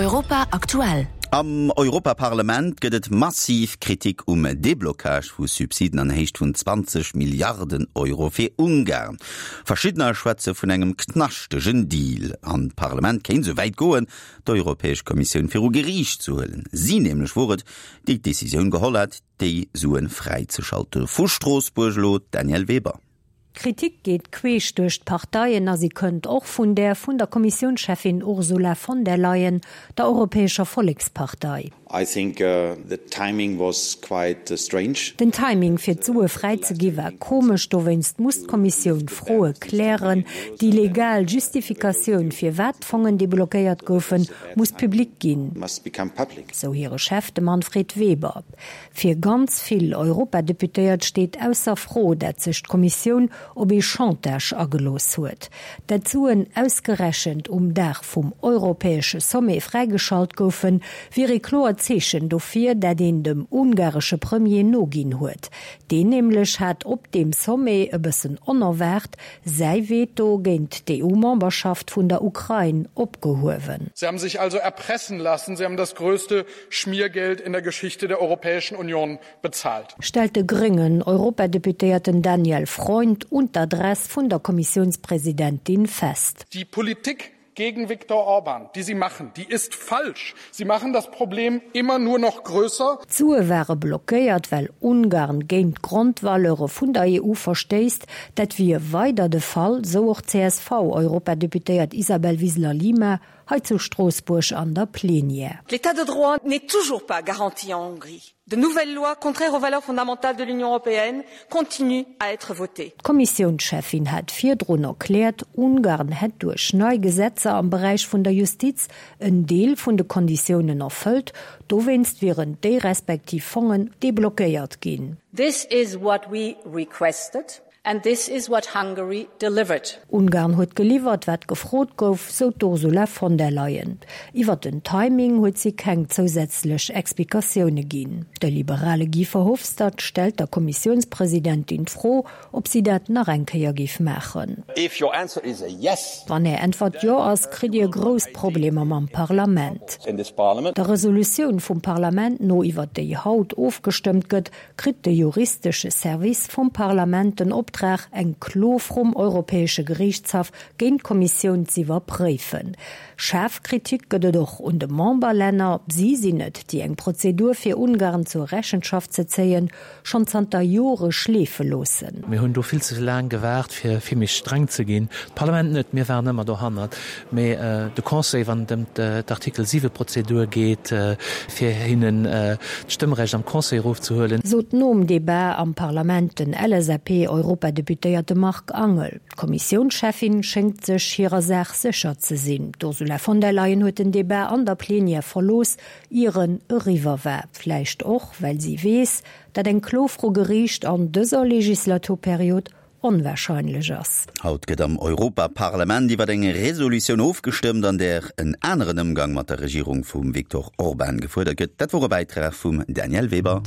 Europa aktuell. Am Europaparlament gëtt et massiv Kritik um Deblocage vu Subsiden an Héicht vun 20 Milliarden Euro fir Ungarn. Verschiddener schwätze vun engem knaschtegen Deal. An d'Parlament kéint esou wäit goen, d'Europäesch Kommissioun viru Geriicht ze huelen. Si nämlech wor et, déi d'Decisioun geholl hat, déi Sue fräizeschalte. Vu Stroossbuerg elo d'Danièle Weber. D'Kritik geet queesch duerch d'Parteien a si kënnt och vun där vun der Kommissiounscheffin Ursula von der Leyen, der Europäescher Vollekspartei. I think the timing was quite strange. Den Timing fir d'Sue fräi ze gi war komesch, dowéinst muss d'Kommissioun Froe klären. Déi legal Justifikatioun firwat d'Fongen deblockéiert goufen, muss public ginn, sou hire Chef, de Manfred Weber. Fir ganz vill Europadeputéiert steet ausser Fro, dat sech d'Kommissioun op ee Chantage agelooss huet. Dat d'Suen ausgerechent um Dag vum europäesche Sommet fräigeschalt goufen, wier ee kloert Zeechen dofir, dat een dem ungaresche Premier noginn huet. Deen nämlech hat op deem Sommet, e bëssen onerwaart, säi Veto géint d'EU-Memberschaft vun der Ukrain opgehuewen. Sie haben sich also erpressen lassen, sie haben das größte Schmiergeld in der Geschichte der Europäischen Union bezahlt. Stellt de gréngen Europadeputéierten Daniel Freund un d'Adress vun der Kommissiounspresidentin fest. Die Politik gegen Viktor Orban, die Sie machen, die ist falsch. Sie machen das Problem immer nur noch größer. D'Sue ware blockéiert, well Ungarn géint d'Grondvaleure vun der EU verstéisst. Dat wier weider de Fall, sou och d'CSV-Europadeputéiert Isabel Wiseler-Lima hei zu Stroossbuerg an der Plenière. L'État de droit n'est toujours pas garanti en Hongrie. De nouvelles lois contraires aux valeurs fondamentales de l'Union européenne continuent à être votées. D'Kommissiounscheffin hat virdrun erkläert, Ungarn hätt duerch nei Gesetzer am Beräich vun der Justiz en Deel vun de Konditiounen erfëllt, dowéinst wieren déi respektiv Fongen deblockéiert ginn. This is what we requested. And this is what Hungary delivered. Ungarn huet geliwwert, wat gefrot gouf, sou d'Ursula von der Leyen. Iwwer den Timing huet si keng zousätzlech Explikatioune ginn. De liberale Guy Verhofstadt stellt der Kommissiounspresidentin d'Fro, ob si dat nach eng Kéier géif maachen. If your answer is a yes. Wann Är Äntwert Jo ass, kritt Dir grouss Problemer mam Parlament. Der Resolutioun vum Parlament no, iwwer déi haut ofgestëmmt gëtt, kritt de juristesche Service vum Parlament den Optrag, eng Klo vrum Europäesche Geriichtshaff géint d'Kommissioun z'iwwerpréifen. Schaarf Kritik gëtt et och un de Memberlänner. Si sinn et, déi eng Prozedur fir Ungarn zur Rechenschaft ze zéien, schonn zanter Jore schleefe loossen. Mir hunn do vill ze laang gewaart, fir vill méi streng ze ginn. D'Parlament net, mir waren ëmmer dohannert. Mee de Conseil, wann et ëm d'Artikel 7 Prozedur geet, fir hinnen d'Stëmmrecht am Conseil erofzehuelen. Sot nom Debat am Parlament den LSAP-Europadeputéierte Marc Angel. D'Kommissiounscheffin schéngt sech hirer Saach sécher ze sinn. D'Ursula von der Leyen huet den Debat an der Plenière verlooss, ier en eriwwer war. Vläicht och, well si weess, dat eng Klo vru Geriicht an dëser Legislaturperiod onwahrscheinlech ass. Haut gëtt am Europaparlament iwwer eng Resolutioun ofgestëmmt, an där en aneren Ëmgang mat der Regierung vum Viktor Orban gefuerdert gëtt. Dat wor e Bäitrag vum Danièle Weber.